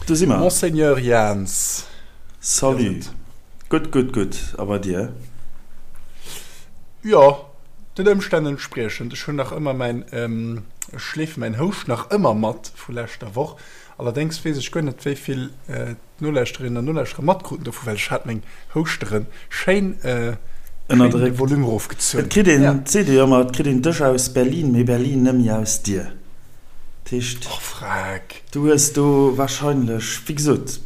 Do si mer. Monseigneur Jans. Salut. Gutt, gutt, gutt. A bei dir? Jo, den Ëmstänn entspriechend. Ech hunn nach ëmmer mäin, ech schleefe mäin Houscht nach ëmmer mat vu leschter Woch. Allerdéngs weess ech guer net, wéi vill d'Nolauschterinnen an Nolauschterer matkruten dovu, well ech hat meng Houschtere schéin, schéin de Volume erofgezunn. Et kritt een, et seet ee jo ëmmer, et kritt een dech aus Berlin, mee Berlin nëmme aus dir. Dat heescht, Och freck. du hues do warscheinlech, wéi gesot,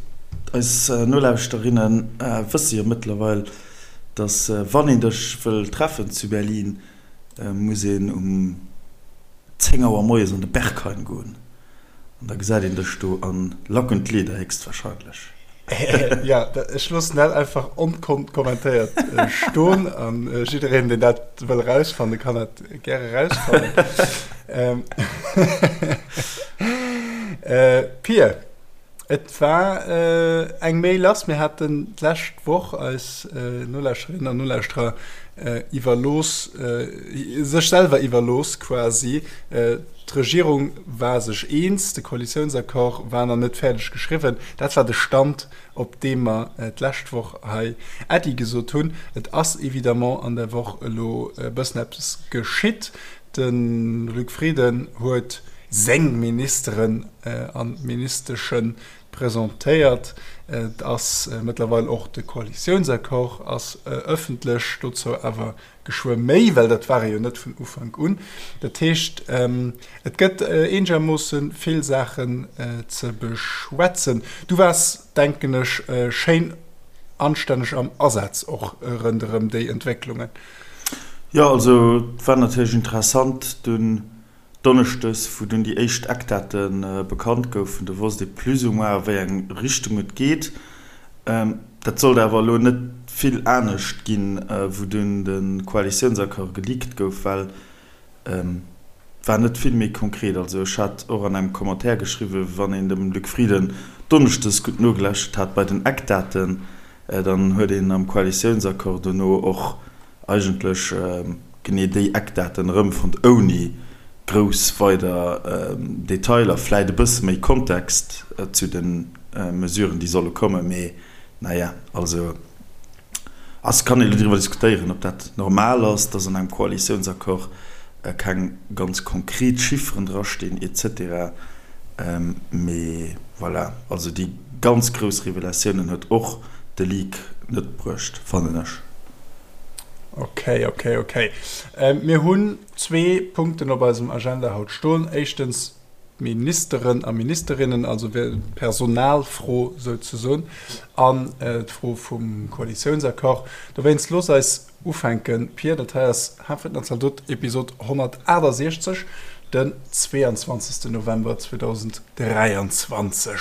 eis Nolauschterinnen wësse jo mëttlerweil, dass wann een dech wëll treffen zu Berlin, muss een um 10 Auer moies an de Berghain goen. An da gesäit een dech do a Lack und Leder héchstwahrscheinlech. Jo, ech loossen dat einfach onkommentéiert stoen an jiddereen, deen dat wëll erausfannen, kann dat gäre erausfannen. Pir, et war eng Méi lass. Mir haten d'lescht Woch eis Nolauschterinnen an Nolauschterer iwwerlooss, sech selwer iwwerlooss quasi, D'Regierung war sech eens, de Koalitiounsaccord war nach net fäerdeg geschriwwen. Dat war de Stand, op deem mer d'lescht Woch hei Äddi gesot hunn. Et ass évidemment an der Woch elo e bëssen eppes geschitt. De Luc Frieden huet seng Ministeren an Ministesche presentéiert. Et ass mëttlerweil och de Koalitiounsaccord ass ëffentlech, dozou awer Geschwë méi, well dat war e jo net vun Ufank un. Dat heescht, et gëtt eenegermoosse vill Saachen ze beschwätzen. Du waars, denken ech, schéin anstänneg am Asaz och ronderëm déi Entwécklungen. Jo, also et war natierlech interessant dunn Donneschdes, wou dunn déi éischt Eckdate bekannt goufen, do wosst ee plus ou moins, a wéi eng Richtung et geet. Dat sollt awer elo net vill anescht ginn, wou dunn de Koalitiounsaccord geleakt gouf, well et war net vill méi konkret. Also ech hat och an engem Commentaire geschriwwen, wann een dem Luc Frieden donneschdes gutt nogelauschtert hat bei den Eckdaten, dann huet een am Koalitiounsaccord dono och eigentlech genee déi Eckdaten erëmfonnt, ouni grouss weider Detailer, vläit e bësse méi Kontext zu de Mesuren, déi solle kommen, mee naja, also ass, kann ee lo driwwer diskutéieren, ob dat normal ass, dass an engem Koalitiounsaccord keng ganz konkret Chifferen drastinn et cetera, mee voilà, also déi ganz grouss Revelatiounen huet och de Leak net bruecht, fannen ech. Ok, ok, ok. Mir hunn zwee Punkten op eisem Agenda haut stoen. Éischtens d'Ministeren a Ministerinnen, also d'Personalfro souzesoen, an d'Fro vum Koalitiounsaccord. Dowéinst looss eis ufänken, Pir. Dat hei ass Hafen an Zaldot, Episod 168, den 22. November 2023.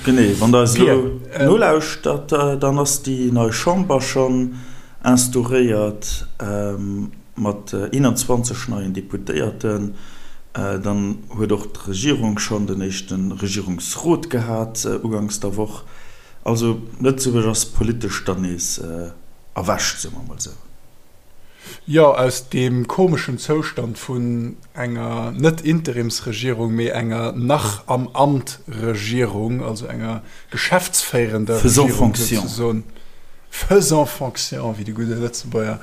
Genee, wann der eis elo nolauschtert, dann ass déi nei Chamber schonn instauréiert mat 21 neien Deputéierten. Dann huet och d'Regierung schonn den éischte Regierungsrot gehat uganks der Woch. Also Lëtzebuerg ass politesch dann nees erwächt, soe mer emol esou. Jo, aus deem komeschen Zoustand vun enger net Interimsregierung, mee enger nach am Amt Regierung, also enger geschäftsféierender Regierung souzesoen, faisant fonction, wéi de gudde Lëtzebuerger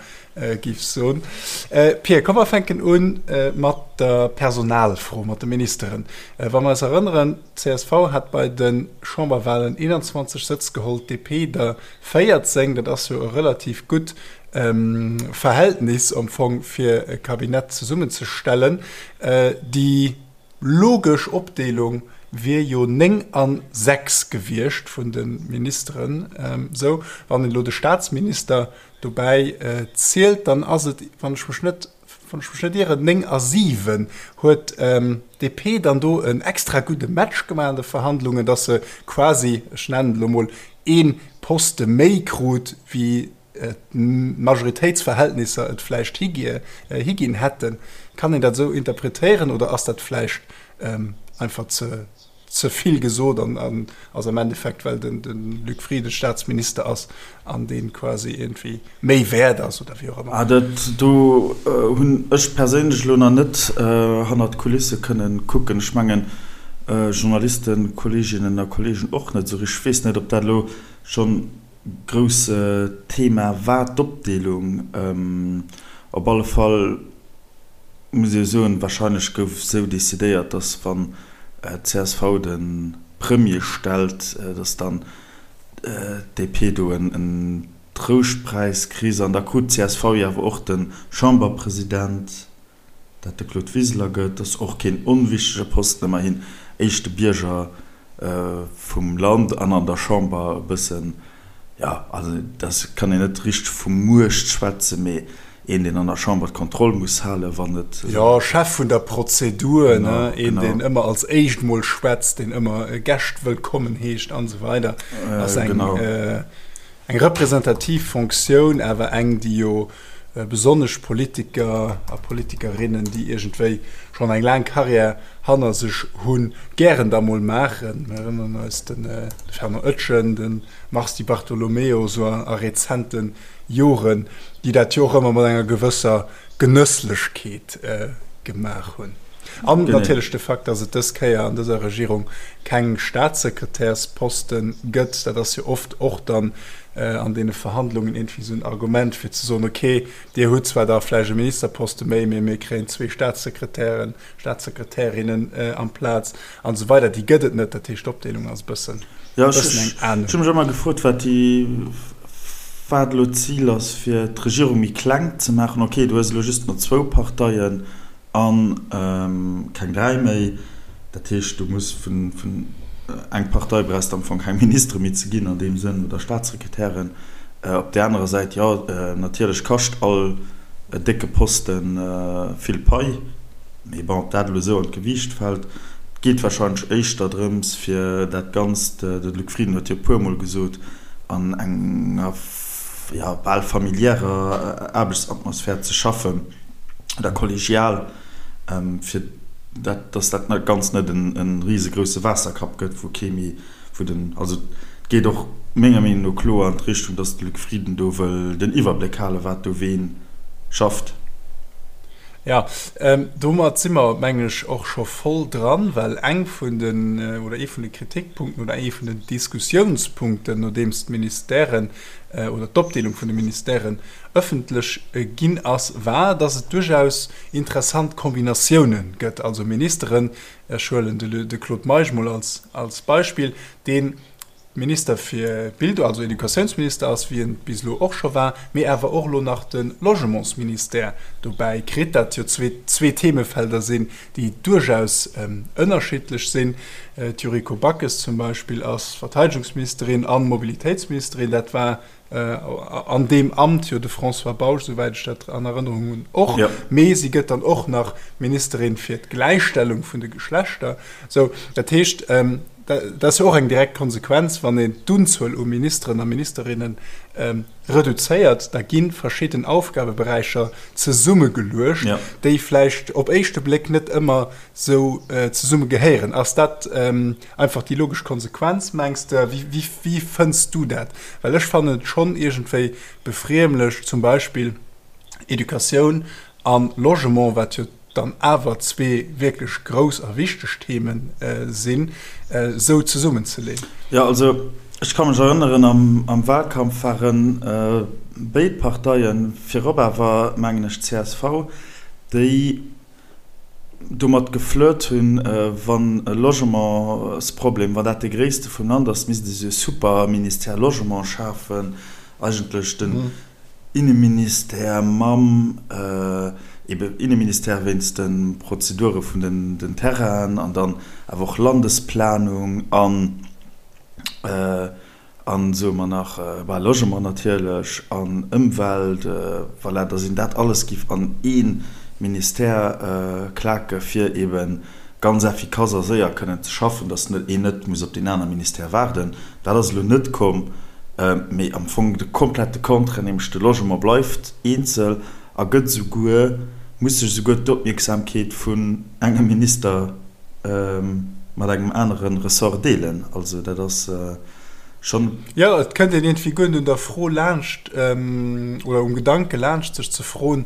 géif soen. Pir, komm mer fänken u mat der Personalfro, mat de Ministeren. Wa mer eis erënneren, d'CSV hat bei de Chamberwahlen 21 Sëtz geholl, d'DP der 14, dat ass jo e relativ gutt Verhältnis am Fong fir e Kabinett zesummenzestellen. Déi logesch Opdeelung wier jo 9 an 6 gewiescht vun de Ministeren. Esou, wann een elo de Staatsminister dobäi zielt, dann ass et, wann ech mech net, wann ech mech net ieren, 9 a 7. Huet d'DP dann do en extra gudde Match gemaach an de Verhandlungen, datt se quasi, ech nennen et elo mol, ee Poste méi krut wéi d'Majoritéitsverhältnisser et vläicht higinn hätten. Kann een dat esou interpretéieren oder ass dat vläicht einfach ze. ze vill gesot an ass am Endeffekt, well den Luc Frieden Staatsminister ass an dee quasi iergendwéi méi wäert ass oder wéi och ëmmer. Ah, dat do hunn ech perséinlech elo nach net hannert d'Kulisse kënnen kucken. Ech mengen, Journalisten, Kolleeginnen a Kolleegen och net esou richteg. Ech weess net, ob dat elo schonn grouss Thema war, d'Opdeelung. Op alle Fall muss ee soen, wahrscheinlech gouf esou decidéiert, datt wann d'CSV de Premier stellt, datt dann d'DP do en Trouschtpräis kriss. An da krut d'CSV jo awer och de Chamberpresident. Dat de Claude Wiseler gëtt, ass och keen onwichtege Posten, ëmmerhin éischte Bierger vum Land an an der Chamber e bëssen, jo, also dat kann een net richteg vu Muecht schwätzen, mee een, deen an der Chamber d'Kontroll muss halen, wann et. Jo, Chef vun der Prozedur, ne, een, deen ëmmer als éischt mol schwätzt, deen ëmmer Gäscht wëllkommen heescht an esou weider, ass eng. Eng representativ Fonctioun, awer eng, déi jo besonnesch Politiker a Politikerinnen, déi iergendwéi schonn eng laang Karriär hanner sech hunn, gären da mol maachen. Mir erënneren eis de Fernand Oetjen, de Mars Di Bartolomeo, esou a rezente Joren, déi dat jo och ëmmer mat enger gewësser Genësslechkeet gemaach hunn. An natierlech de Fakt, datt et dës Kéier an dëser Regierung keng Staatssekretärsposte gëtt, dat ass jo oft och dann an deene Verhandlungen iergendwéi esou en Argument, fir ze soen, okay, Dir hutt zwar da vläicht e Ministerposte méi, mee mir kréien zwee Staatssekretären, Staatssekretärinnen amplaz an esou weider. Déi gëtt et net. Dat heescht, d'Opdeelung ass e bëssen eng aner. Ech hu mech ëmmer gefrot, wat déi, wat elo d'Zil ass, fir d'Regierung méi kleng ze maachen. Okay, du hues elo just nach zwou Parteien a keng 3 méi. Dat heescht, du muss vun eng Partei brauchs de am Fong keng Ministere méi ze ginn an deem Sënn oder Staatssekretären. Op där anerer Säit, jo, natierlech kascht all décke Poste vill Pai. Mee bon, ob dat elo esou an d'Gewiicht fält. Et geet warscheinlech éischter drëms, fir dat Ganzt, de Luc Frieden huet jo e puermol gesot, an enger, jo, bal familiärer Aarbechtsatmosphär ze schaffen. oder kollegial, fir dat, dass dat Ganzt net e risegrousse Waasserkapp gëtt, wou kee méi, wou den, also et geet och menger Meenung no kloer an d'Richtung, dass de Luc Frieden do wëll den Iwwerbléck halen, wat do ween schafft. Jo, domat si mer, mengen ech, och scho voll dran, well eng vun den, oder ee vun de Kritikpunkten oder ee vun den Diskussiounspunkten, nodeems d'Ministèren oder d'Opdeelung vun de Ministèren ëffentlech ginn ass, war, dass et duerchaus interessant Kombinatiounen gëtt, also Ministeren, ech huelen de Claude Meisch mol als Beispill, dee Minister fir Bildung, also Educatiounsminister ass, wéi en bis elo och scho war, mee awer och elo nach de Logementsministère dobäi kritt, dat jo zwee Themefelder sinn, déi duerchaus ënnerschiddlech sinn. D'Yuriko Backes zum Beispill ass Verteidegungsministerin a Mobilitéitsministerin, dat war an deem Amt jo de François Bausch, souwäit ech dat an Erënnerung hunn, och. Mee si gëtt dann och nach Ministerin fir d'Gläichstellung vun de Geschlechter. Sou, dat heescht, dat ass jo och eng direkt Konsequenz, wann een d'Unzuel u Ministeren a Ministerinne reduzéiert, da gi verschidden Aufgabeberäicher zesummegeluecht, déi vläicht op éischte Bléck net ëmmer sou zesumme gehéieren. Ass dat einfach déi logesch Konsequenz, mengs de? Wéi fënns du dat? Well ech fannen et schonn iergendwéi befriemlech, zum Beispill Educatioun a Logement, wat jo dann awer zwee wierklech grouss a wichteg Theme sinn, esou zesummenzeleeën. Jo, also ech ka mech erënneren, am Wahlkampf ware béid Parteien, virop awer mengen ech csv, déi domat geflirt hunn, wann e Logementsproblem, wann dat dee gréisste vum Land ass, misst ee sou e Superministère Logement schafen, eigentlech den Inneministère mam ebe Inneministère wéinst de Prozedure vun den Terrainen an dann awer och Landesplanung an An soe mer nach, bah, Logement natierlech an Ëmwelt, voilà, dass een dat alles giff an ee Ministère klake fir eebe ganz effikass a séier kënnen ze schaffen, dass een net muss op deen aner Ministère waarden. Dat ass elo net komm, mee am Fong de komplette Contraire, nämlech de Logement bleift eenzel a gëtt esouguer, muss sech esouguer d'Opmierksamkeet vun engem Minister. mat engem anere Ressort deelen. Also dat ass schonn. Jo, et kënnt een iergendwéi guer net un der Fro laanscht oder um Gedanke laanscht, sech ze froen,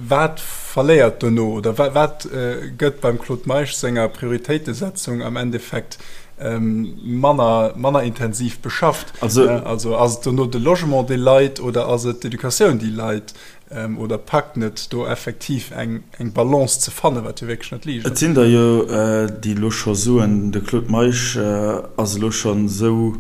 wat verléiert dono oder wat gëtt beim Claude Meisch senger Prioritéitesetzung am Endeffekt manner, manner intensiv beschafft. Also, also ass et dono de Logement, dee leit oder ass et d'Educatioun, déi leit? Oder packt net do effektiv eng, eng Balance ze fannen, wat jo wierklech net liicht ass? Et sinn der jo, déi elo scho soen, de Claude Meisch ass elo schonn esou,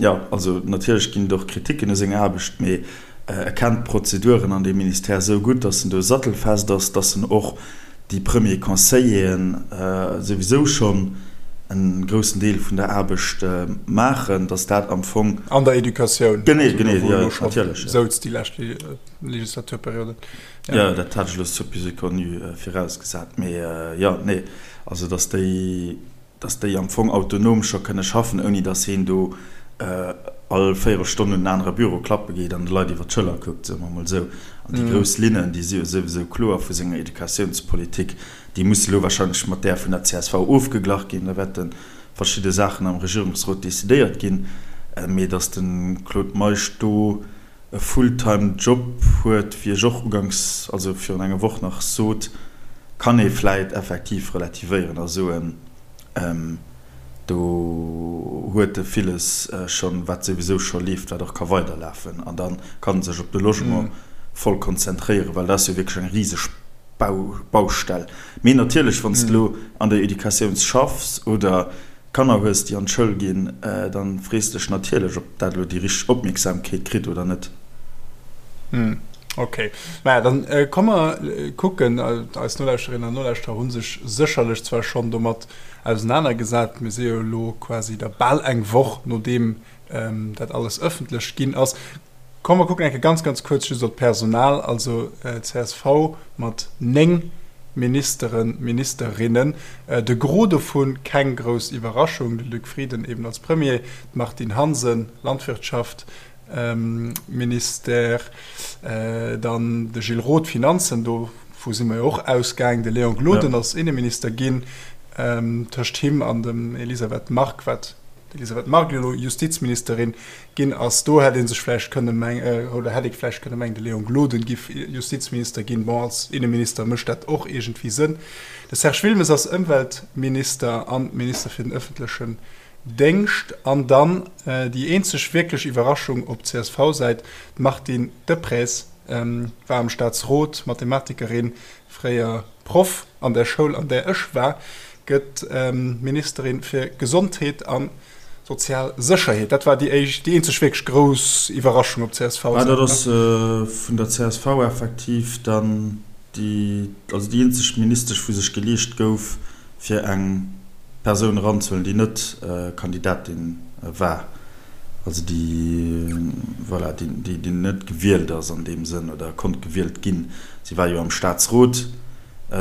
jo, also natierlech ginn et och Kriticken u senger Aarbecht, mee e kennt d'Prozeduren an deem Ministère esou gutt, datt en do sattelfest ass, datt en och déi Premiers Conseilleren souwisou schonn e groussen Deel vun der Aarbecht maachen, datt dat am Fong. An der Educatioun. Genee, genee, jo, natierlech. Souz déi lescht Legislaturperiode. Jo, dat hat ech elo supposé connu virausgesat, mee jo, nee, also datt déi. dass déi am Fong autonom scho kënne schaffen, ouni dass heen do all Véierelstonn un en anere Büro klappe geet an de Leit iwwer d'Schëller kuckt, soe mer emol esou. An déi grouss Linnen, déi si jo souwisou kloer vu senger Educatiounspolitik, déi musse elo wahrscheinlech mat där vun der csv ofgeglach ginn. Da wäerte verschidde Saachen am Regierungsrot decidéiert ginn. Mee dass de Claude Meisch do e Fulltime Job huet, wéi ech och uganks, also virun enger Woch nach sot, kann ee vläit effektiv relativéieren a soen, do huet e villes schonn, wat souwisou scho leeft, wat och ka weiderlafen an da kann e sech op de Logement voll konzentréieren, well dat ass jo wierklech eng riseg Baustell. Mee natierlech, wann s de elo an der Educatioun schaffs oder Kanner hues, déi an d'Schoul ginn, dann frees dech natierlech, ob dat elo déi richteg Opmierksamkeet kritt oder net. Hm, ok. Maja, dann komm mer kucken, eis Nolauschterinnen an Nolauschterer hu sech sécherlech zwar schonn domat ausenanergesat, mir si jo elo quasi da bal eng Woch nodeem dat alles ëffentlech ginn ass. Komm mer kucken eng Kéier ganz, ganz kuerz just op d'Personal. Also csv mat 9 Ministeren, Ministerinnen. De Gros dovun, keng grouss Iwwerraschung, de Luc Frieden eben als Premier, d'Martine Hansen, Landwirtschaft, Ministère, dann de Gilles Roth, Finanzen, dovu si mer jo och ausgaang, de Léon Gloden ass Inneminister ginn, tëscht him an dem Elisabeth Margue, wat d'Elisabeth Margue elo Justizministerin ginn ass. Do hätt ee sech vläicht kënne mengen, oder hätt ee vläicht kënne mengen, de Léon Gloden giff Justizminister ginn. Bon, als Inneminister mécht dat och iergendwéi Sënn. De Serge Wilmes ass Ëmweltminister an Minister fir den ëffentlechen Déngscht. An dann déi eenzeg wierklech Iwwerraschung op CSV-Säit, d'Martine Deprez war am Staatsrot, Mathematikerin, fréier Proff an der Schoul, an där ech war, gëtt Ministerin fir Gesondheet a sozial Sécherheet. Dat war déi éischt, déi eenzeg wierklech grouss Iwwerraschung op CSV-Säit. Dat ass vun der csv effektiv dann déi, also déi eenzeg Ministesch, wou sech geleescht gouf, fir eng Persoun eranzehuelen, déi net Kandidatin war, also déi, voilà, déi, déi net gewielt ass an deem Sënn oder konnt gewielt ginn. Si war jo am Staatsrot,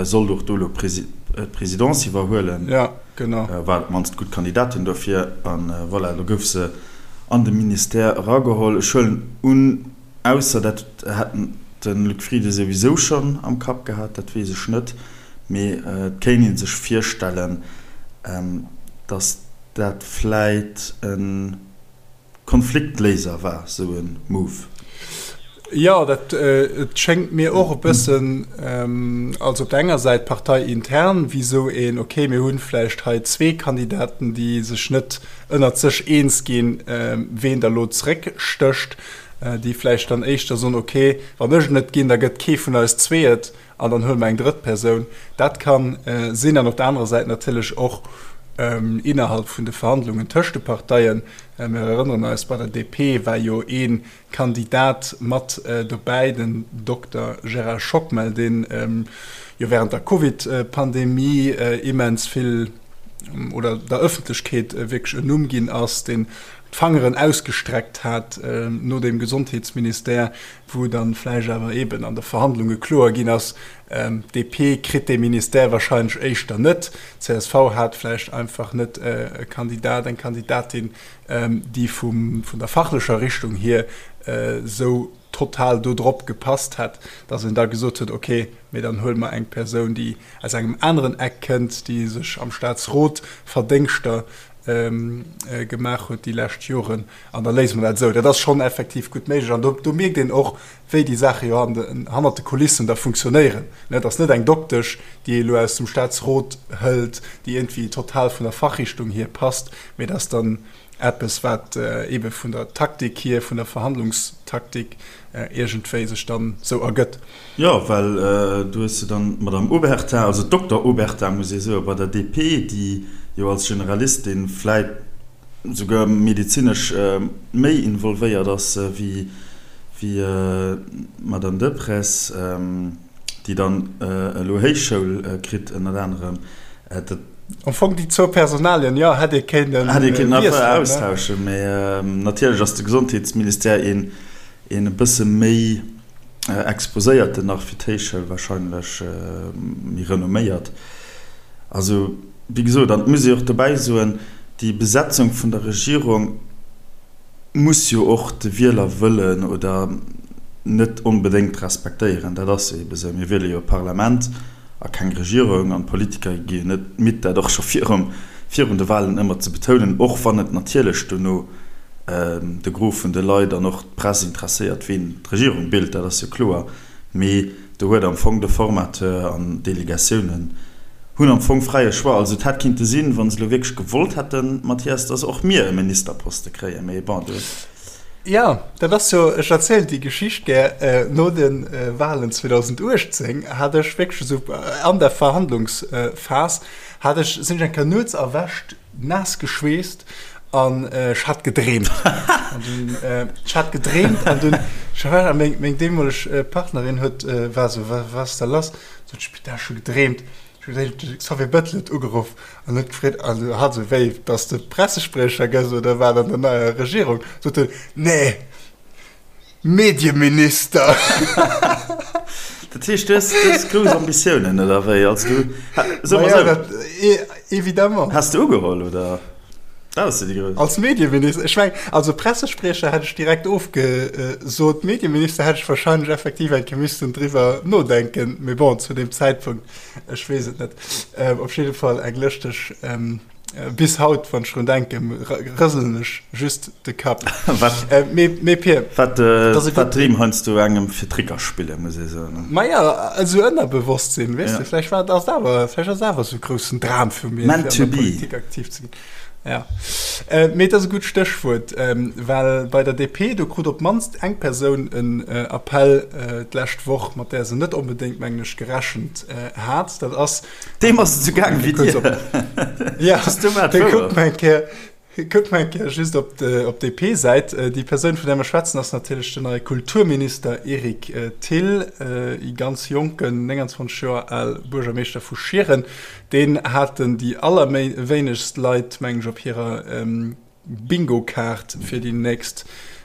sollt och do elo d'Presidence iwwerhuelen, war op d'mannst gutt Kandidatin dofir. A voilà, elo gouf se an de Ministère erageholl. Ech huelen un, ausser dat hätt de Luc Frieden souwisou schonn am Kapp gehat, dat weess ech net, mee et kéint ee sech virstellen, datt dat vläit e Konfliktléiser war, sou e Move. Jo, dat et schéngt mir och e bëssen, also op der enger Säit parteiintern, wéi sou een, okay, mir hunn vläicht hei zwee Kandidaten, déi sech net ënnert sech eens ginn, ween da lo zeréckstécht, déi vläicht dann éischter soen, okay, wann ech et net ginn, da gëtt kee vun eis zwee et. An dann huele mer eng drëtt Persoun. Dat ka sinn. An op der anerer Säit natierlech och innerhalb vun de Verhandlungen tëscht de Parteien. Mir erënneren eis, bei der DP war jo ee Kandidat mat dobäi, den Dokter Gérard Schockmel, dee jo während der Covid-Pandemie immens vill oder der Ëffentlechkeet wierklech en Numm ginn ass, deen d'Fangeren ausgestreckt hat no dem Gesondheetsministère, wou dann vläicht awer eeben an de Verhandlunge kloer ginn ass, d'DP kritt dee Ministère wahrscheinlech éischter net, csv hat vläicht einfach net e Kandidat, eng Kandidatin, déi vum, vun der fachlecher Richtung hier esou. total do drop gepasst hätt, datt een da gesot huet, okay, mee dann huele mer eng Persoun, déi aus engem aneren Eck kënnt, déi sech am Staatsrot Verdéngschter gemaach huet déi lescht Joren, an da léise mer dat esou. Dat ass schonn effektiv gutt méiglech. An do mierkt een och, wéi déi Saache jo hannert de Kulissen da funktionéieren. Et ass net eng Doktesch, déi ee elo aus dem Staatsrot hëlt, déi iergendwéi total vun der Fachrichtung hier passt, mee et ass dann eppes, wat eebe vun der Taktik hier, vun der Verhandlungstaktik iergendwéi sech dann esou ergëtt. Jo, well do hues de dann d'Madame Obertin, also d'Dokter Obertin, muss ee soen, bei der DP, déi jo als Generalistin vläit souguer medezinesch méi involvéiert ass wéi d'Madame Deprez, déi dann elo Héichschoul kritt ënnert anerem. Dat. Am Fong déi zwou Personalien, jo, hätt ee kéinten Hätt ee kéinten einfach austauschen, mä natierlech ass de Gesondheetsministère een e bësse méi exposéierten nach fir d'Héichschoul, wahrscheinlech méi renomméiert. Also, wéi gesot, an et muss ee och dobäi soen, déi Besetzung vun der Regierung muss jo och de Wielerwëllen oder net onbedéngt respektéieren. Dat ass jo ebe sou. Mir wiele jo e Parlament a keng Regierung an d'Politiker gi jo net midd, dat och scho virum, virun de Wahlen ëmmer ze betounen, och wann et natierlech dono de Gros vun de Leit an och d'Press interesséiert, ween d'Regierung bilt, dat ass jo kloer. Mee do huet am Fong de Formateur an d'Delegatiounen hunn am Fong fräie Choix. Also et hätt kinnte sinn, wa se elo wierklech gewollt hätten, Mathias, dass och mir e Ministerposte kréien. Mee bon, do. Jo, dat ass jo, ech erzielen déi Geschicht gär, no de Wahlen 2018 hat ech wierklech esou an der Verhandlungsphas hat ech, sinn ech eng Kéier nuets erwächt, naass geschweesst an ech hat gedreemt. An dunn, ech hat gedreemt an dunn, ech war, a meng, meng deemoleg Partnerin huet, war esou, Wa, wat ass da lass? Sot ech, Putain, ech hu gedreemt. Ech hu gedreemt, de Xavier Bettel huet ugeruff an huet gefreet, also hat esou, wéi, dass de Pressespriecher gëss oder wat an der neier Regierung? Sot en, Nee! Medieminister! Dat heescht, du hues, du hues grouss Ambitiounen, oder wéi? Also du, so mol sou. Évidemment. Häss de ugeholl, oder? Dat ass jo déi grouss. Als Medieminister? Ech meng, also Pressespriecher hätt ech direkt ofgesot. Medieminister hätt ech wahrscheinlech effektiv eng Kéier missten driwwer nodenken. Mee bon, zu deem Zäitpunkt, ech weess et net. Op jidde Fall eng lëschteg. Bis haut, wann ech drun denken, rëselen ech just de Kapp. Wat, Mee Pir, wat, wat d'Dreem heiansdo engem fir Tricker spillen, muss ee soen. Maja, esou Ënnerbewosstsinn, weess de, vläicht war, ass et awer, vläicht ass et awer esou e groussen Dram vu mir, fir an der Politik aktiv ze ginn. Ja. Mee et ass e gutt Stéchwuert, well bei der DP, do krut op d'mannst eng Persoun en Appell d'lescht Woch, mat där se net onbedéngt, mengen ech, gerechent hat. Dat ass Deem ass et esou gaang wéi dir. Ja, kuckt mol eng Kéier, kuckt mol eng Kéier just op d'DP-Säit. Déi Persoun, vun där mer schwätzen, ass natierlech den neie Kulturminister Eric Thill, e ganz jonken, 29 Joer al Buergermeeschter vu Schieren. Deen haten déi allerwéinegst Leit, mengen ech, op hirer Bingo-Kaart fir déi nächst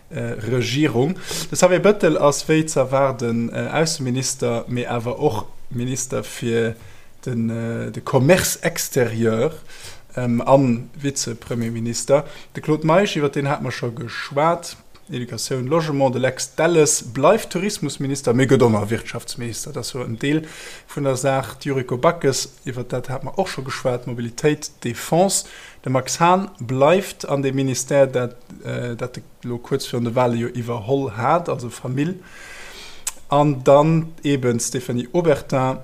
Regierung. De Xavier Bëttel ass wéi ze erwaarden Ausseminister, mee awer och Minister fir de Commerce extérieur a Vize-Premierminister. De Claude Meisch, iwwer deen hate mer scho geschwat, Educatioun, Logement. De Lex Delles bleift Tourismusminister, mee gëtt och nach Wirtschaftsminister, dat ass jo en Deel vun der Saach. D'Yuriko Backes, iwwer dat hate mer och scho geschwat, Mobilitéit, Defense. De Max Hahn bleift an deem Ministère, dat dat e lo kuerz virun de Wale jo iwwerholl hat, also Famill. An dann eeben d'Stéphanie Obertin,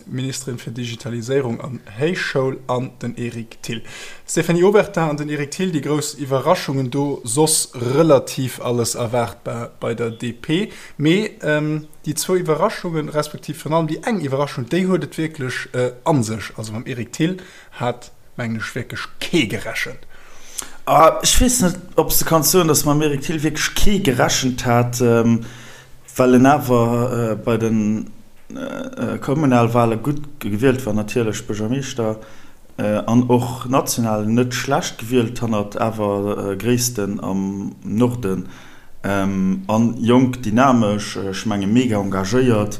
Ministerin fir Digitaliséierung an Héichschoul, an den Eric Thill. D'Stéphanie Obertin an den Eric Thill, déi grouss Iwwerraschungen do, soss relativ alles erwaartbar bei der DP. Mee déi zwou Iwwerraschungen, respektiv virun allem déi eng Iwwerraschung, déi huet et wierklech a sech. Also mam Eric Thill hat mengen ech wierklech kee gerechent. Ah, ech weess net, ob s de kanns soen, datt mam Eric Thill wierklech kee gerechent hat, well en awer bei de Kommunalwale gutt gewielt war, natierlech Buergermeeschter, an och national net schlecht gewielt, hannert awer Gréissten am Norden. An jonk, dynamesch, ech menge mega engagéiert.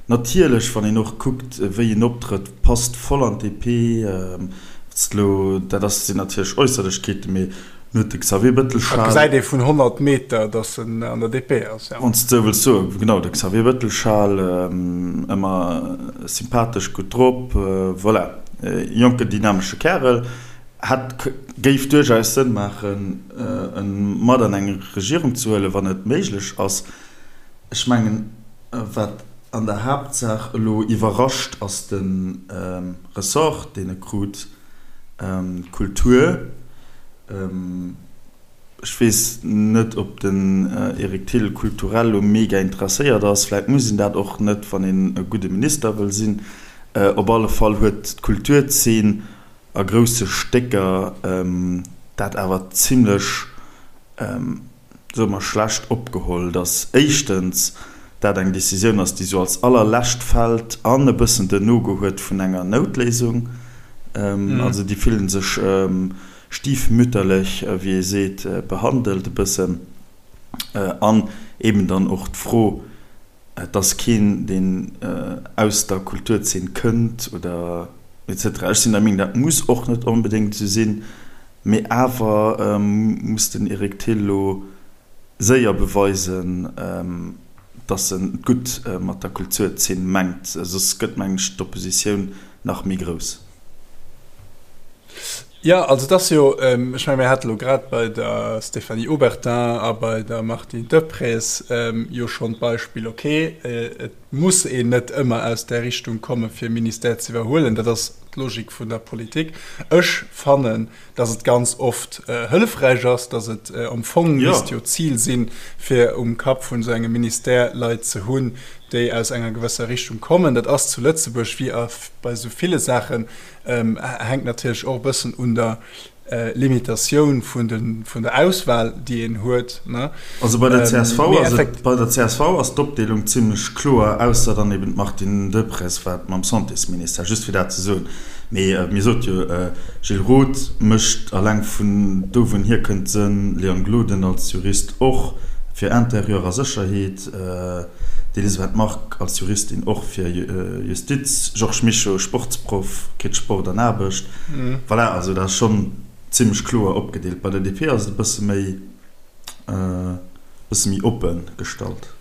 Natierlech, wann een och kuckt, wéi en optrëtt, passt voll an d'DP. Dat ass, sinn natierlech Äusserlechkeeten, mee. Dann huet de Xavier Bettel Schal. Dat gesäit ee vun 100 Meter, datt en an der DP ass, jo. Wann s de esou wëlls soen, genau, de Xavier Bettel Schal, ëmmer sympathesch, gutt drop, voilà, jonken, dynamesche Kärel. Hätt, géif duerchaus Sënn maachen, en mat an eng Regierung ze huelen, wann et méiglech ass. Ech mengen, wat an der Haaptsaach elo iwwerrascht, ass de Ressort, deen e krut, Kultur. Ech weess net, ob den Eric Thill kulturell elo mega interesséiert ass. Vläit muss een dat och net, wann een e gudde Minister wëll sinn. Op alle Fall huet d'Kulturzeen a grousse Stécker dat awer zimlech, soe mer, schlecht opgeholl, datt éischtens dat eng Décisioun ass, déi sou als allerlescht fält an e bëssen den No-Go huet vun enger Noutléisung. Also déi fillen sech stiefmütterlech, wéi ee seet, behandelt e bëssen. An eben dann och d'Fro, Et ass keen, deen aus der Kulturzeen kënnt oder et cetera. Ech sinn der Meenung, dat muss och net onbedéngt esou sinn, mee awer muss den Eric Thill elo séier beweisen, datt en et gutt mat der Kulturzeen mengt, soss gëtt, mengen ech, d'Oppositioun nach méi grouss. Jo, also et ass jo, ech menge mir hate lo grad bei der Stéphanie Obertin a bei der Martine Deprez jo schonn d'Beispill, okay, et muss een net ëmmer aus där Richtung komme fir e Ministère ze iwwerhuelen, dat ass d'Logik vun der Politik. Ech fannen, datt et ganz oft hëllefräich ass, datt et am Fong misst jo d'Zil sinn, fir um Kapp vun esou engem Ministère Leit ze hunn, déi aus enger gewësser Richtung kommen. Dat ass zu Lëtzebuerg wéi a bei esou ville Saachen Hänkt natierlech och e bëssen un der Limitatioun vun der Auswahl, déi een huet. Also bei der csv ass et, bei der csv ass d'Opdeelung zimlech kloer, ausser dann eben d'Martine Deprez, wat mam Santésministère, just fir dat ze soen. Mee mir sot jo, Gilles Roth mécht alleng vun do wou en hierkënnt Sënn, Léon Gloden als Jurist och fir Intérieur a Sécherheet, D'Elisabeth Margue als Juristin och fir Justiz, Georges Mischo, Sportsproff, kritt Sport an Aarbecht. Voilà, also dat ass schonn zimmlech kloer opgedeelt. Bei der DP ass et e bësse méi, e bësse méi oppe gestallt.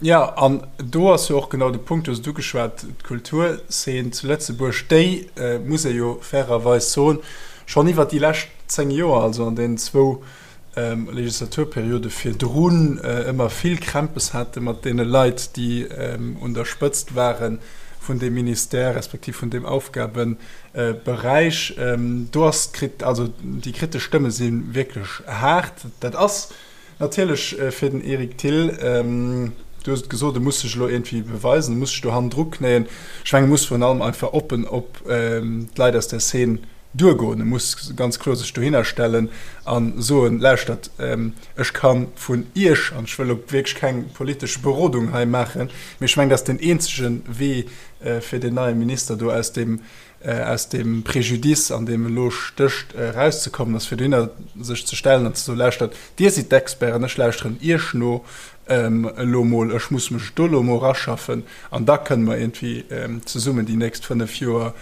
Jo, an do ass jo och genau de Punkt, du hues et ugeschwat, d'Kulturzeen zu Lëtzebuerg, déi, muss ee jo fairerweis soen, schonn iwwert déi lescht 10 Joer, also an deenen zwou Legislaturperiode virdrun ëmmer vill Krämpes hate mat deene Leit, déi un der Spëtzt ware vun deem Ministère respektiv vun deem Aufgabeberäich. Do ass d'Krit, also déi kritesch Stëmme si wierklech haart. Dat ass natierlech fir den Eric Thill, du hues et gesot, e muss sech elo iergendwéi beweisen, e muss sech do hannendru knéien. Ech mengen, e muss virun allem einfach oppen op d'Leit aus der Szene duergoen. E muss ganz kloer sech dohinner stellen a soen, Lauschtert, ech ka vun Iech, an ech wëll elo wierklech keng politesch Berodung hei maachen, mee ech mengen, dat ass deen eenzege Wee fir deen neie Minister do aus deem, aus deem Préjudice, an deem e lo stécht, erauszekommen, ass fir dohinner sech ze stellen an ze soen, Lauschtert, Dir sidd d'Experten, ech lauschteren Iech no elo mol, ech muss mech do elo mol eraschaffen an da kënne mer iergendwéi zesummen déi nächst 5 Joer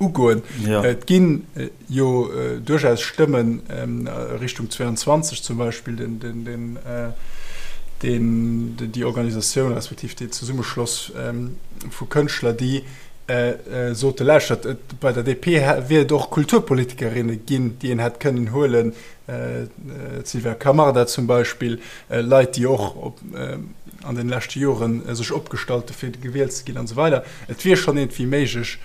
ugoen. Et gi jo duerchaus Stëmmen Richtung 22 zum Beispill, déi Organisatioun respektiv dee Zesummeschloss vu Kënschtler, déi sote lauschtert, bei der DP wier et och Kulturpolitikerinne ginn, déi een hätt kënnen huelen, d'Sylvia Camarda zum Beispill, Leit, déi och an den leschte Joren sech opgestallt hu fir gewielt ze ginn an esou weider. Et wier schonn iergendwéi méiglech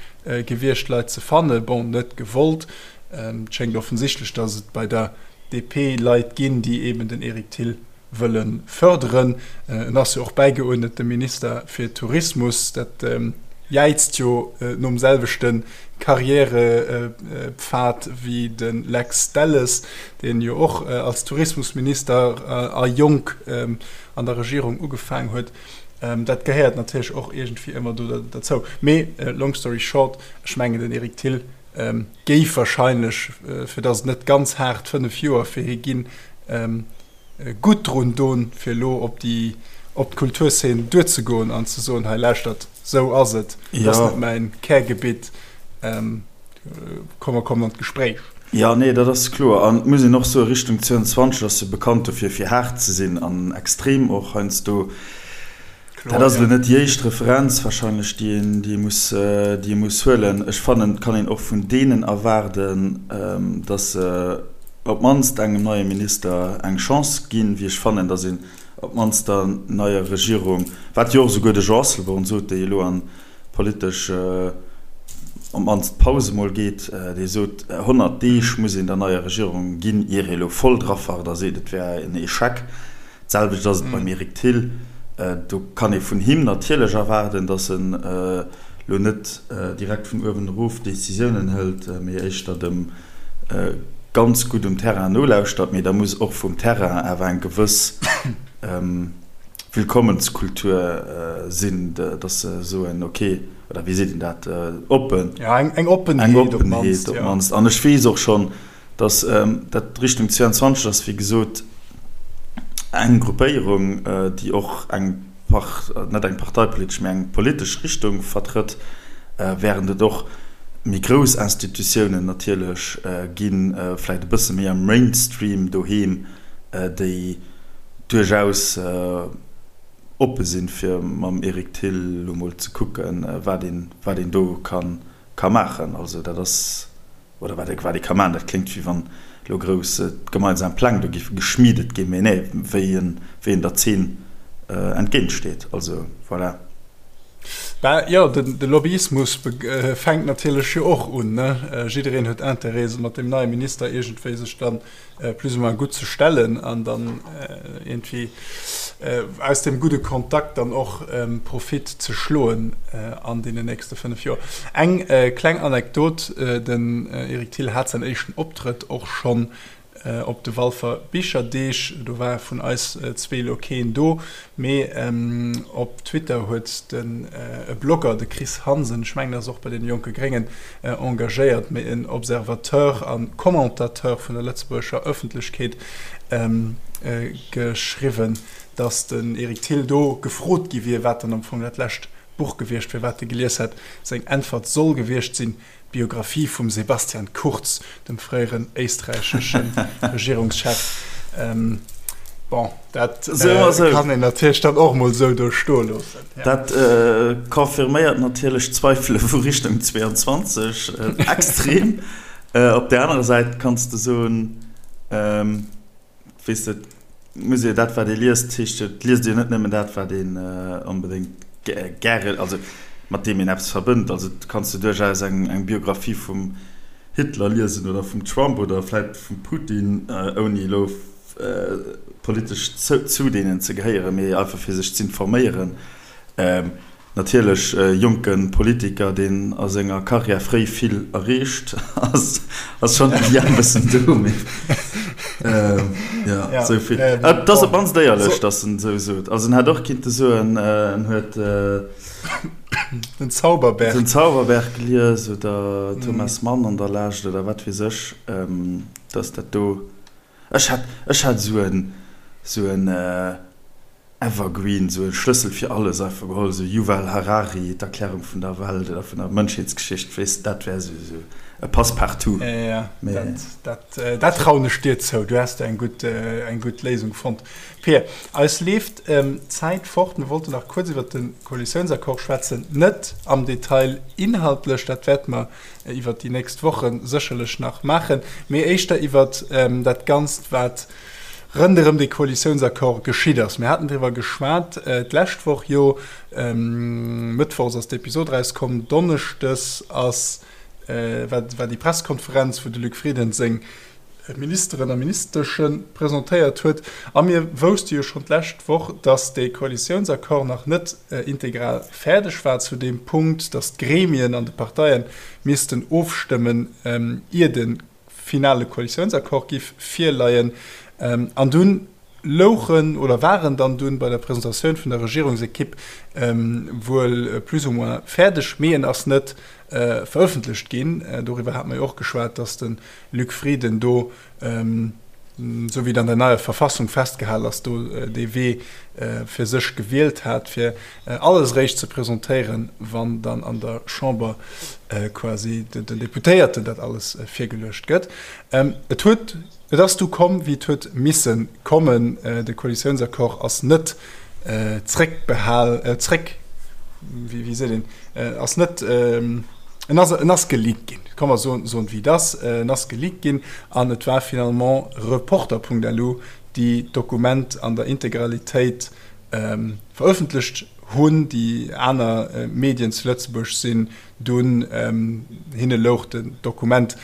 gewiescht, Leit ze fannen. Bon, net gewollt. Et schéngt offensichtlech, datt et bei der DP Leit ginn, déi eben den Eric Thill wëlle fërderen. En ass jo och bäigeuerdnete Minister fir Tourismus. Dat jäizt jo nom selwechte Karriärepfad wéi de Lex Delles, deen jo och als Tourismusminister a jonk an der Regierung ugefaang huet. Dat gehéiert natierlech och iergendwéi ëmmer do derzou. Mee long story short, ech mengen den Eric Thill géif wahrscheinlech, fir datt et net ganz haart 5 Joer fir hie ginn, gutt drun don, fir elo op déi, op d'Kulturszen duerzegoen an ze soen, hei lauschtert, esou ass et, dat ass net mäin Kärgebitt, komm mer kommen an d'Gespréich. Jo, nee, dat ass kloer. An et muss een och soen, Richtung 22 ass jo bekannt dofir, fir haart ze sinn an extrem och heiansdo. Dat ass elo net déi éischt Referenz wahrscheinlech, déi een, déi ee muss, déi ee muss huelen. Ech fannen, et kann een och vun deenen erwaarden, datt se op d'mannst engem neie Minister eng Chance ginn, wéi ech fannen, datt een op d'mannst der neier Regierung, wat jo och esouguer de Jean Asselborn sot, dee elo an politesch op d'mannst Paus emol geet, dee sot, 100 Deeg muss een der neier Regierung ginn, ier ee elo voll drafart a seet, et wär en Echec. D'selwecht ass et beim Eric Thill. Do kann ee vun him natierlech erwaarden, datt en elo net direkt vun uewen erof Decisiounen hëlt, mee éischter dem ganz gutt um Terrain nolauschtert. Mee da muss och vum Terrain awer eng gewëss Willkommenskultur sinn, dass se soen, ok, oder wéi seet een dat, oppen, Ja, eng Oppenheet op d'mannst. An ech weess och schonn, dass dat Richtung 22 ass, wéi gesot, eng Gruppéierung, déi och eng, net eng parteipolitesch, mä eng politesch Richtung vertrëtt, während et och méi grouss Institutiounen natierlech ginn, vläicht e bësse méi am Mainstream doheem, déi duerchaus oppe sinn, fir mam Eric Thill elo mol ze kucken, wat een, wat een do ka, ka maachen. Also dat ass, oder wat ee, wat ee ka maachen, dat kléngt, wéi wann elo grouss gemeinsam Pläng do géife geschmiedet ginn, mee nee, wéi en, wéi een der Zeen entgéintsteet. Also voilà. Bah jo, de Lobbyismus fänkt natierlech jo och un, ne? Jiddereen huet Interêt, mat deem neie Minister iergendwéi sech dann plus ou moins gutt ze stellen an dann iergendwéi aus deem gudde Kontakt dann och Profit ze schloen an deenen nächste 5 Joer. Eng kleng Anekdot, Den Eric Thill hat säin éischten Optrëtt och schonn op de Walfer Bicherdeeg. Do war vun eis zwee elo keen do, mee op Twitter huet den e Blogger, de Chris Hansen, ech mengen, ass och bei deene Jonke Gréngen engagéiert, mee en Observateur a Commentateur vun der lëtzebuergescher Ëffentlechkeet, geschriwwen, datt den Eric Thill do gefrot gi wier, wat dann am Fong dat lescht Buch gewiescht wier, wat e gelies hätt. Seng Äntwert soll gewiescht sinn, D'Biographie vum Sebastian Kurz, dem fréieren éisträichesche Regierungschef. Bon, dat kann een natierlech dann och mol esou do stoe loossen. Dat confirméiert natierlech d'Zweifele vu Richtung 22 extrem. Op där anerer Säit kanns de soen, Weess de, et muss ee dat, wat ee liest, heescht jo, et liest ee jo net nëmmen dat, wat een onbedéngt gäre, also mat deem een eppes verbënnt. Also et kanns de duerchaus eng, eng Biographie vum Hitler liesen oder vum Trump oder vläit vum Putin, ouni elo politesch zu deenen ze gehéieren, mee einfach fir sech z'informéieren. Natierlech e jonke Politiker, deen a senger Karriär fréi vill erreecht, ass schonn de Lien e bëssen do, mee jo, esou vill. Et ass op d'mannst éierlech, datt en esou sot. Also en hätt och kinnte soen, en huet Den Zauberberg. Den Zauberberg gelies oder Thomas Mann an der Lescht oder wat weess ech, datt dat do, ech hätt, ech hätt esou en, esou en. Evergreen, esou e Schlëssel fir alles einfach geholl, esou Yuval Harari, d'Erklärung vun der Welt oder vun der Mënschheetsgeschicht, weess de, dat wär esou esou e Passe-partout. Jo, jo, dat, dat trauen ech dir zou, du häss do eng gutt, eng gutt Léisung fonnt. Pir, eis leeft d'Zäit fort, mir wollten nach kuerz iwwert de Koalitiounsaccord schwätzen, net am Detail inhaltlech, dat wäerte mer iwwert déi nächst Woche sécherlech nach maachen, mee éischter iwwert dat Ganzt, wat Ronderëm dee Koalitiounsaccord geschitt ass. Mir haten driwwer geschwat d'lescht Woch jo. Mëttwochs ass d'Episod erauskomm, donneschdes ass war war déi Presskonferenz, wou de Luc Frieden seng Ministeren a Ministesche presentéiert huet. A mir wousste jo schonn d'lescht Woch, datt dee Koalitiounsaccord nach net integral fäerdeg war zu deem Punkt, datt d'Gremien an de Parteie missten ofstëmmen, ier de finale Koalitiounsaccord giff virleien. An dunn louchen oder waren dann dunn bei der Presentatioun vun der Regierungsekipp wuel plus ou moins fäerdeg, mee en ass net verëffentlecht ginn. Doriwwer hate mer jo och geschwat, dass de Luc Frieden do, esou wéi et an der neier Verfassung festgehal ass, do dee Wee fir sech gewielt hat, fir alles eréischt ze presentéieren, wann dann an der Chamber quasi den Deputéierten dat alles virgeluecht gëtt. Et huet, et ass du komm, wéi et huet misse kommen. De Koalitiounsaccord ass net zréckbehal, zréck, wéi seet een, ass net, en ass, en ass geleakt ginn, komm mer soen, soen et wéi et ass, en ass geleakt ginn an et war finalement Reporter.lu, déi d'Dokument an der Integralitéit verëffentlecht hunn. Déi aner Medien zu Lëtzebuerg sinn dunn, hinne louch den Dokument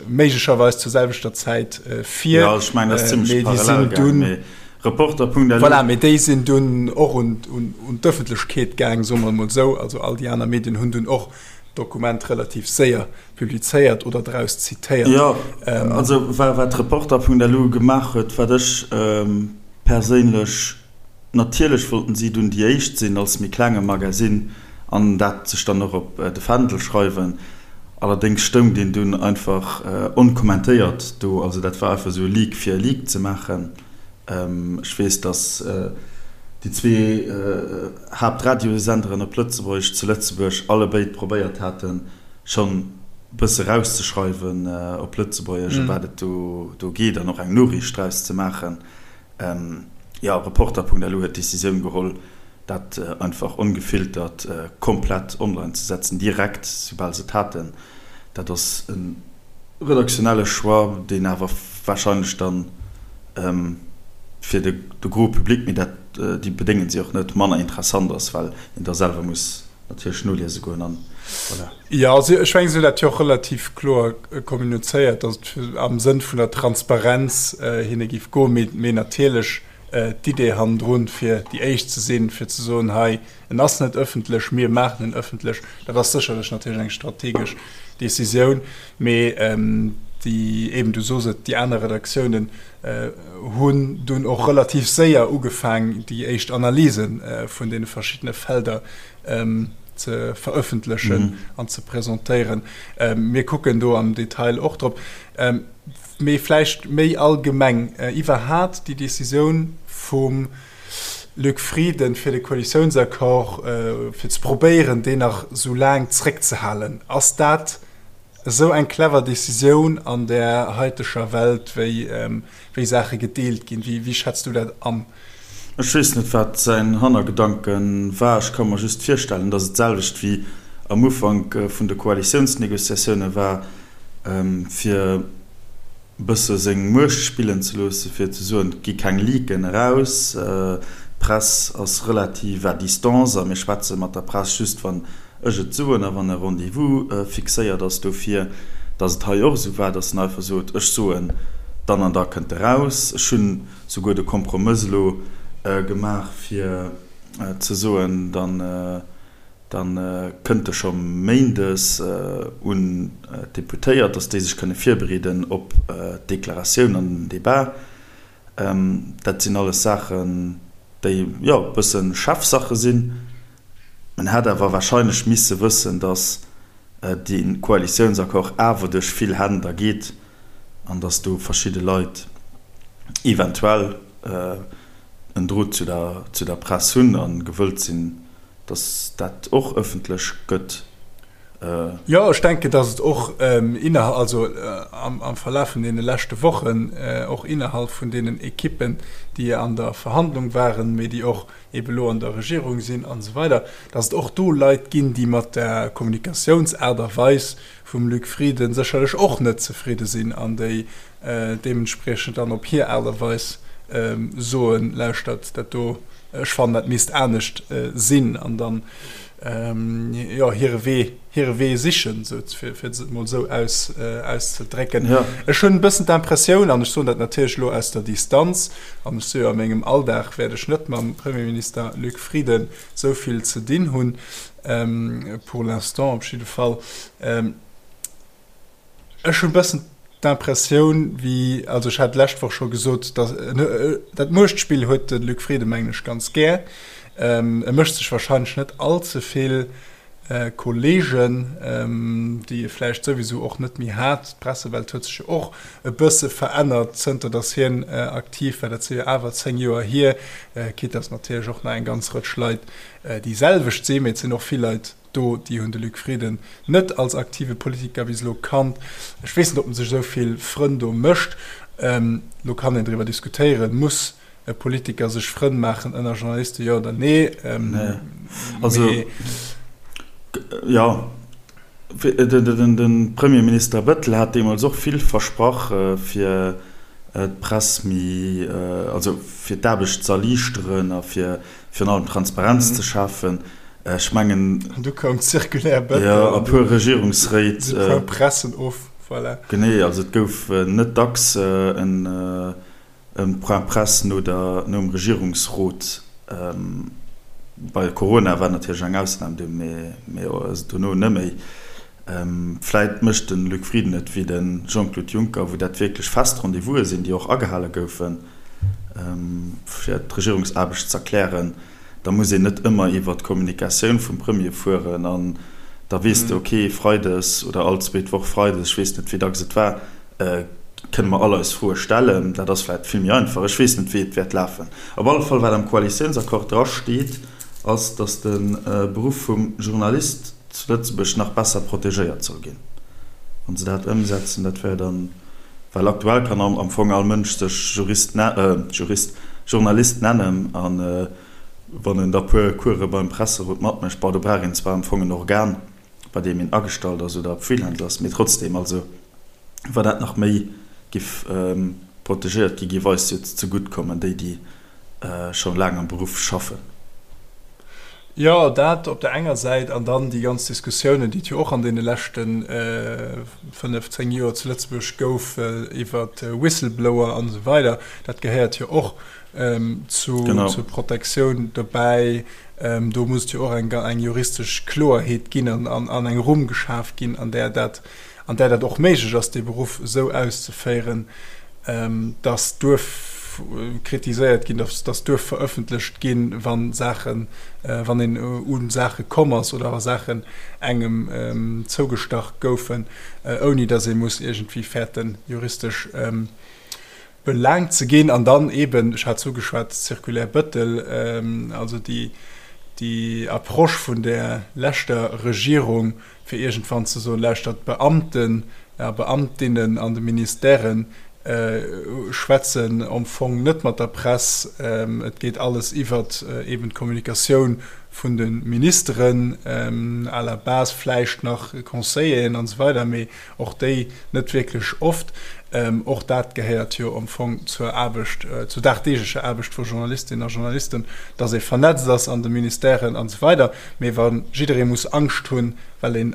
méiglecherweis zur selwechter Zäit vir. Jo, ech mengen, dat ass zimmlech parallel gaangen, mee Reporter.lu. Voilà, mee déi sinn dunn och un d'Ëffentlechkeet gaang, soe mer emol esou. Also all déi aner Medien hunn dunn och d'Dokument relativ séier publizéiert oder draus zitéiert. Jo, also wat Reporter.lu gemaach huet, wat ech perséinlech, natierlech wollten si dunn déi éischt sinn als méi klenge Magasinn an dat sech dann och op de Fändel schreiwen. Allerdéngs stoung deen dunn einfach onkommentéiert do, also dat war einfach esou e Leak fir e Leak ze maachen. Ech weess, datt déi zwee Haaptradiosenderen op Lëtzebuergesch zu Lëtzebuerg allebéid probéiert haten, schonn e bësse rauszeschreiwen op Lëtzebuergesch, ëm wat et do geet an och eng Noriicht draus ze maachen. Jo, Reporter.lu huet d'Decisioun geholl, dat einfach ongefiltert komplett online ze setzen, direkt soubal se et haten. Dat ass e redaktionelle Choix, deen awer warscheinlech dann fir de gros Public, mee dat, déi bedéngen si och net, manner interessant ass, well een da selwer muss natierlech noliese goen an voilà. Jo, also ech mengen, si hunn dat jo och relativ kloer kommunizéiert, datt et am Sënn vun der Transparenz hinne géif goen, mee natierlech d'Idee hannendrun, fir déi Éischt ze sinn, fir ze soen, hei, En ass net ëffentlech, mir maachen en ëffentlech. Dat ass sécherlech natierlech eng strategesch Decisioun, mee déi, eben, du sos et, déi aner Redaktiounen hunn dunn och relativ séier ugefaang, déi éischt Analyse vun deene verschiddene Felder ze verëffentlechen an ze presentéieren. Mir kucken do am Detail och drop. Mee vläicht méi allgemeng iwwerhat déi Decisioun vum Luc Frieden, fir de Koalitiounsaccord, fir ze probéieren, deen nach esou laang zréckzehalen. Ass dat esou eng clever Decisioun an där haiteger Welt, wéi, wéi Saache gedeelt ginn? Wéi, wéi schätz du dat an? Ech weess net, wat säin Hannergedanke war. Ech ka mer just virstellen, datt et d'selwecht wéi am Ufank vun de Koalitiounsnegociatioune war, fir, e bësse seng Muecht spillen ze loossen, fir ze soen, et gi keng Leaken eraus, d'Press ass relativ à distance a mir schwätze mat der Press just, wann ech et soen a wann e Rendez-vous fixéiert ass dofir, datt et hei och esou war, datt en einfach sot, ech soen, dann an da kënnt eraus. Ech hunn souguer de Kompromëss elo gemaach, fir ze soen, dann, Da kënnt e scho méindes un d'Deputéiert, datt déi sech kënne virbereeden op d'Deklaratioun an den Debat. Dat sinn alles Saachen, déi, jo, e bësse Chefsache sinn. En hätt awer warscheinlech misse wëssen, datt dee Koalitiounsaccord awer duerch vill Hänn da geet an datt do verschidde Leit eventuell en Drot zu der Press hunn a gewëllt sinn, dass dat och ëffentlech gëtt. Jo, ech denken, dass et och innerhalb, also am Verlaf vun deene leschte Wochen, och innerhalb vun deenen Ekippen, déi an der Verhandlung waren, mee déi och eebe elo an der Regierung sinn an esou weider, dass et och do Leit ginn, déi mat der Kommunikatiounsaart a Weis vum Luc Frieden sécherlech och net zefridde sinn an déi deementspriechend dann op hir Aart a Weis soen, Lauschtert, dat do, ech fannen, dat misst anescht sinn, an dann, jo, hire Wee, hire Wee sichen, sou, fir et emol esou aus, auszedrécken. Ech hunn e bëssen d'Impressioun, an ech soen dat natierlech elo aus der Distanz, an ech si jo a mengem Alldag wäert ech net mam Premierminister Luc Frieden esou vill ze dinn hunn, pour l'instant op jidde Fall, Ech hunn e bëssen d'Impressioun, wéi, also ech hat d'lescht Woch scho gesot, datt dat Muechtspill huet de Luc Frieden, mengen ech, ganz gär. E mécht sech wahrscheinlech net all ze vill. Kolleegen, déi e vläicht souwisou och net méi hat. D'Pressewelt huet sech jo och e bësse verännert, zënter datt hien aktiv war. Dat si jo awer 10 Joer hier. Quitte datt natierlech och nach eng ganz Rëtsch Leit déi selwecht sinn, mee et sinn och vill Leit do, déi hunn de Luc Frieden net als aktive Politiker bis elo kannt. Ech weess net, ob en sech esou vill Frënn do mécht. Elo kann een driwwer diskutéieren, muss e Politiker sech Frënn maachen ënner Journalisten, jo oder nee? Nee. Also, jo, de Premierminister Bettel hat deemools och vill versprach, fir d'Press méi, also fir d'Aarbecht z'erliichteren a fir virun allem Transparenz ze schafen. Ech mengen. An du koum d'Circulaire Bettel. Jo, a puer Regierungsréit. Point Pressen of, voilà. Genee, also et gouf net dacks en. E Point Presse no der, nom Regierungsrot. Bei Corona war natierlech eng Ausnam do, mee dono net méi. Vläit mécht de Luc Frieden et wéi de Jean-Claude Juncker, wou dat wierklech fest Rendez-vouse sinn, déi och agehale goufen, fir d'Regierungsaarbecht z'erklären. Da muss een net ëmmer iwwer d'Kommunikatioun vum Premier fueren an da weess de, okay, freides oder all zweet Woch freides, ech weess net, wéi dacks et war, kënne mer all eis Froe stellen. Dat ass vläicht vill méi einfach. Ech weess net, wéi et wäert lafen. Op alle Fall, wat am Koalitiounsaccord drasteet, ass, datt de Beruff vum Journalist zu Lëtzebuerg nach besser protegéiert soll ginn. Wa se dat ëmsetzen, dat wär dann, well aktuell kann am Fong all Mënsch sech Jurist, Jurist, Journalist nennen a wann en da puer Course beim Presserot matmécht, bon, do brauch een zwar am Fong en Organ, bei deem een agestallt ass oder Freelancer ass, mee trotzdem, also wa dat nach méi giff protegéiert gi, giff eis jo zegutt kommen, déi déi scho laang am Beruff schaffen. Jo, dat op der enger Säit an dann déi ganz Diskussiounen, déi et jo och an deene leschte 5, 10 Joer zu Lëtzebuerg gouf iwwer Whistleblower an esou weider, dat gehéiert jo och zur Protektioun dobäi. Do muss et jo och eng juristesch Kloerheet ginn an eng Rumm geschaf ginn, an där dat, an där dat och méiglech ass, dee Beruff esou auszeféieren, dass duerf kritiséiert ginn, dass duerf verëffentlecht ginn, wa Saachen, wann een u Saache komm ass oder wa Saachen engem zougestach goufen, ouni dass ee muss iergendwéi fäerten, juristesch belaangt ze ginn. An dann eeben, ech hat es ugeschwat, d'Circulaire Bettel, also déi, déi Approche vun där leschter Regierung, fir iergendwann ze soen, Lauschtert, d'Beamten a Beamtinnen an de Ministèren schwätzen am Fong net mat der Press, et geet alles iwwert eeben d'Kommunikatioun vun de Ministeren, à la base vläicht nach Conseilleren an esou weider, mee och déi net wierklech oft. Och dat gehéiert jo am Fong zur Aarbecht, zur dagdeeglecher Aarbecht vu Journalistinnen a Journalisten, dass ee vernetzt ass an de Ministèren an esou weider. Mee wa jidderee muss Angscht hunn, well een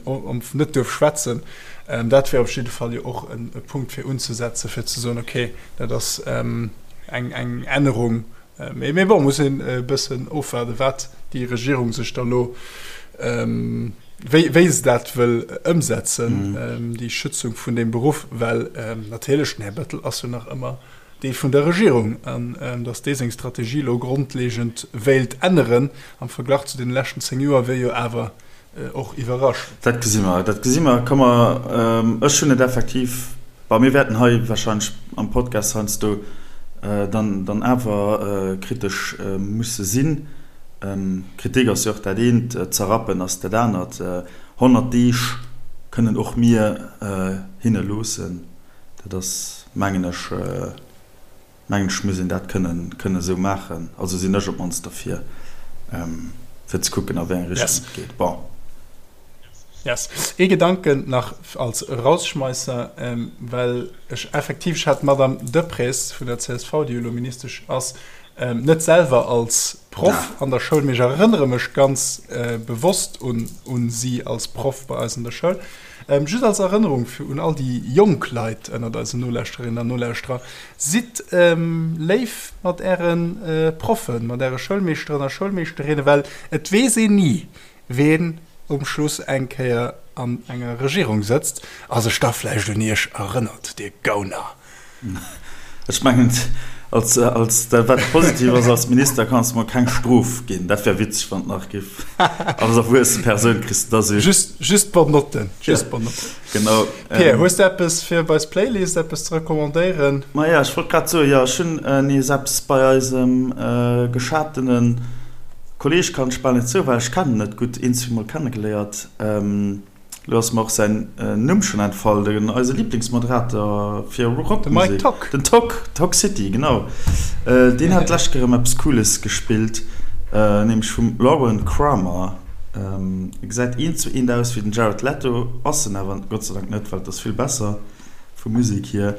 net duerf schwätzen, dat wär op jidde Fall jo och e Punkt fir unzesetzen, fir ze soen, okay, dat ass eng Ännerung, Mee bon, muss een e bëssen ofwaarden, wat déi Regierung sech da lo, wéi, wéi se dat wëll ëmsetzen, déi Schützung vun deem Beruff, well natierlech den Här Bettel ass jo nach ëmmer Deel vun der Regierung. An datt dee seng Strategie elo grondlegend wéilt änneren am Verglach zu deene leschten 10 Joer, wier jo awer och iwwerraschend. Dat gesi mer, dat gesi mer. Komm mer, ech hunn et effektiv Bon, mir wäerten hei wahrscheinlech am Podcast heiansdo dann, dann awer kritesch musse sinn. Kritik ass jo och dat eent, zerrappen ass dat anert. 100 Deeg kënnen och mir hinne loossen. Dat ass, mengen ech, mengen ech muss een dat kënnen, kënnen esou maachen. Also sinn ech op d'mannst derfir, fir ze kucken, a wéi eng Richtung et geet. Bon. Yes. Ee Gedanken nach als Rausschmeisser, well ech effektiv, ech hat d'Madame Deprez vun der csv, déi jo elo Ministesch ass, net selwer als Proff an der Schoul, mee ech erënnere mech ganz bewosst un si als Proff bei eis an der Schoul. Just als Erënnerung fir un all déi jonk Leit ënnert eisen Nolauschterinnen an Nolauschterer, Sidd léif mat äre Proffen, mat äre Schoulmeeschteren a Schoulmeeschterinnen, well et weess een ni, ween um Schluss eng Kéier an enger Regierung sëtzt a sech da vläicht un iech erënnert, dir Gauner. Ech mengen, Als, als, dat wat positiv ass, als Minister kanns de mer keng Strof ginn. Dat wär witzeg, wann et nach giff. Als erwuesse Persoun kriss de da sou. Just, just Bonnotten. Just Bonnotten. Genau. Pir, hues de eppes fir op eis Playlist, eppes ze recommandéieren? Maja, ech wollt grad soen, jo, ech hunn nees eppes bei eisem geschatene Kolleeg, kann ech bal net soen, well ech kennen en net gutt, een, zweemol kennegeléiert. Lo ass mer och säin Numm schonn entfall, den eise Liblingsmoderator fir Rockmusek. De Mike Tock. Den Tock, Tock City, genau. Deen hat d'lescht Kéier erëm eppes Cooles gespillt, nämlech vum Lauren Kramer. E gesäit eent zu eent aus wéi den Jared Leto, ass en awer Gott sei Dank net, well et ass vill besser vu Musek hier.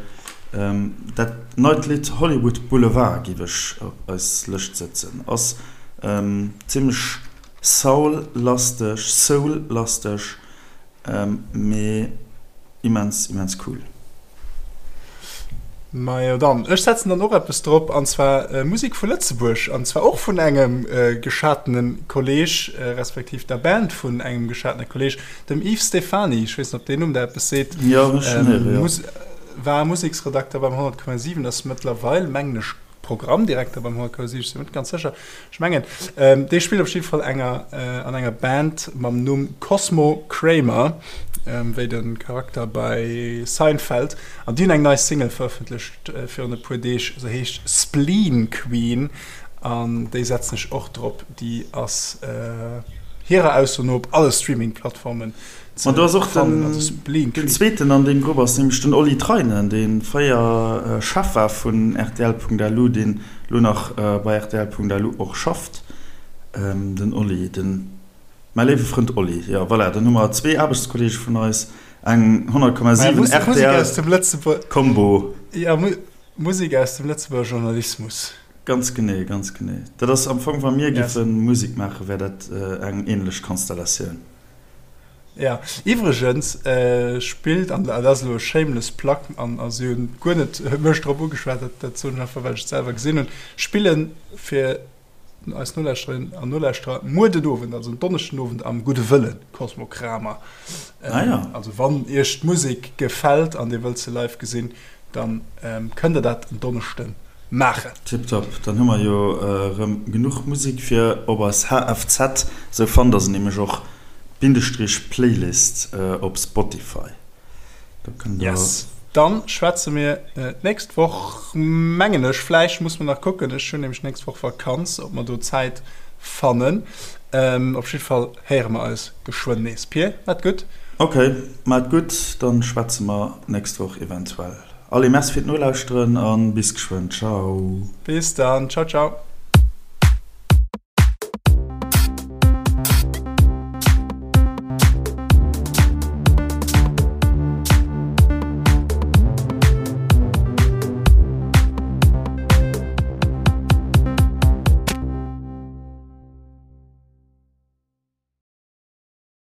Dat neit Lidd Hollywood Boulevard géif ech op eis Lëscht sëtzen, ass zimmlech Soul-lasteg, Soul-lasteg, mee immens, immens cool. Majo dann, ech setzen dann och eppes drop, an zwar Musek vu Lëtzebuerg, an zwar och vun engem geschatene Kolleg, respektiv der Band vun engem geschatene Kolleg, dem Yves Stephany. Ech weess net, ob deen Numm der eppes seet. Jo, ech schonn héieren, jo. War Museksredakter beim 100,7, ass mëttlerweil, mengen ech, Programmdirekter beim HK si, ech sinn net ganz sécher, ech mengen dee spillt op jidde Fall enger an enger Band mam Numm Cosmo Kramer, wéi de Charakter bei Seinfeld, an déi hunn eng nei Single verëffentlecht virun e puer Deeg, se heescht Spleen Queen an déi setzen ech och drop. Déi ass hirer Ausso no op alle Streaming-Plattformen Ma do ass och den, den zweeten an deem Grupp ass nämlech den Oli Treinen, dee fréier Chef war vun rtl.lu, deen elo nach bei rtl.lu och schafft. Den Oli, den, mäi léiwe Frënd Oli. Jo, voilà, dann hu mer zwee Aarbechtskolleege vun eis, eng 100,7 rtl Kombo. Jo, Musek aus dem Lëtzebuerger Journalismus. Ganz genee, ganz genee. Dat ass am Fong, wa mir giffe Musek maachen, wär dat eng änlech Konstellatioun. Jo, iwwregens spillt, an dat ass elo e shameless plug, an si hunn guer net mech drop ugeschwat, dat dat soen ech einfach, well ech et selwer gesinn hunn, spille fir eis Nolauschterinnen an Nolauschterer muer den Owend, also en Donneschden Owend am Gudde Wëllen, Cosmo Kramer. Ah ja. Also wann iech d'Musek gefält an dir wëllt se live gesinn, Dann kënnt der dat en Donneschden maachen. Tiptop, dann hu mer jo rëm genuch Musek fir op eis HFZ, sou fannt der se nämlech och, Bindestrich Playlist op Spotify. Do kënnt der. Yes, dann schwätze mir d'nächst Woch, mengen ech, vläicht muss mer nach kucken, ech hunn nämlech d'nächst Woch Vakanz, ob mer do Zäit fannen. Op jiddwer Fall héiere mer eis geschwënn nees. Pir, maat gutt! Ok, maat gutt, dann schwätze mer nächst Woch eventuell. Allez, merci fir d'Nolauschteren an bis geschwënn. Ciao! Bis dann, ciao ciao!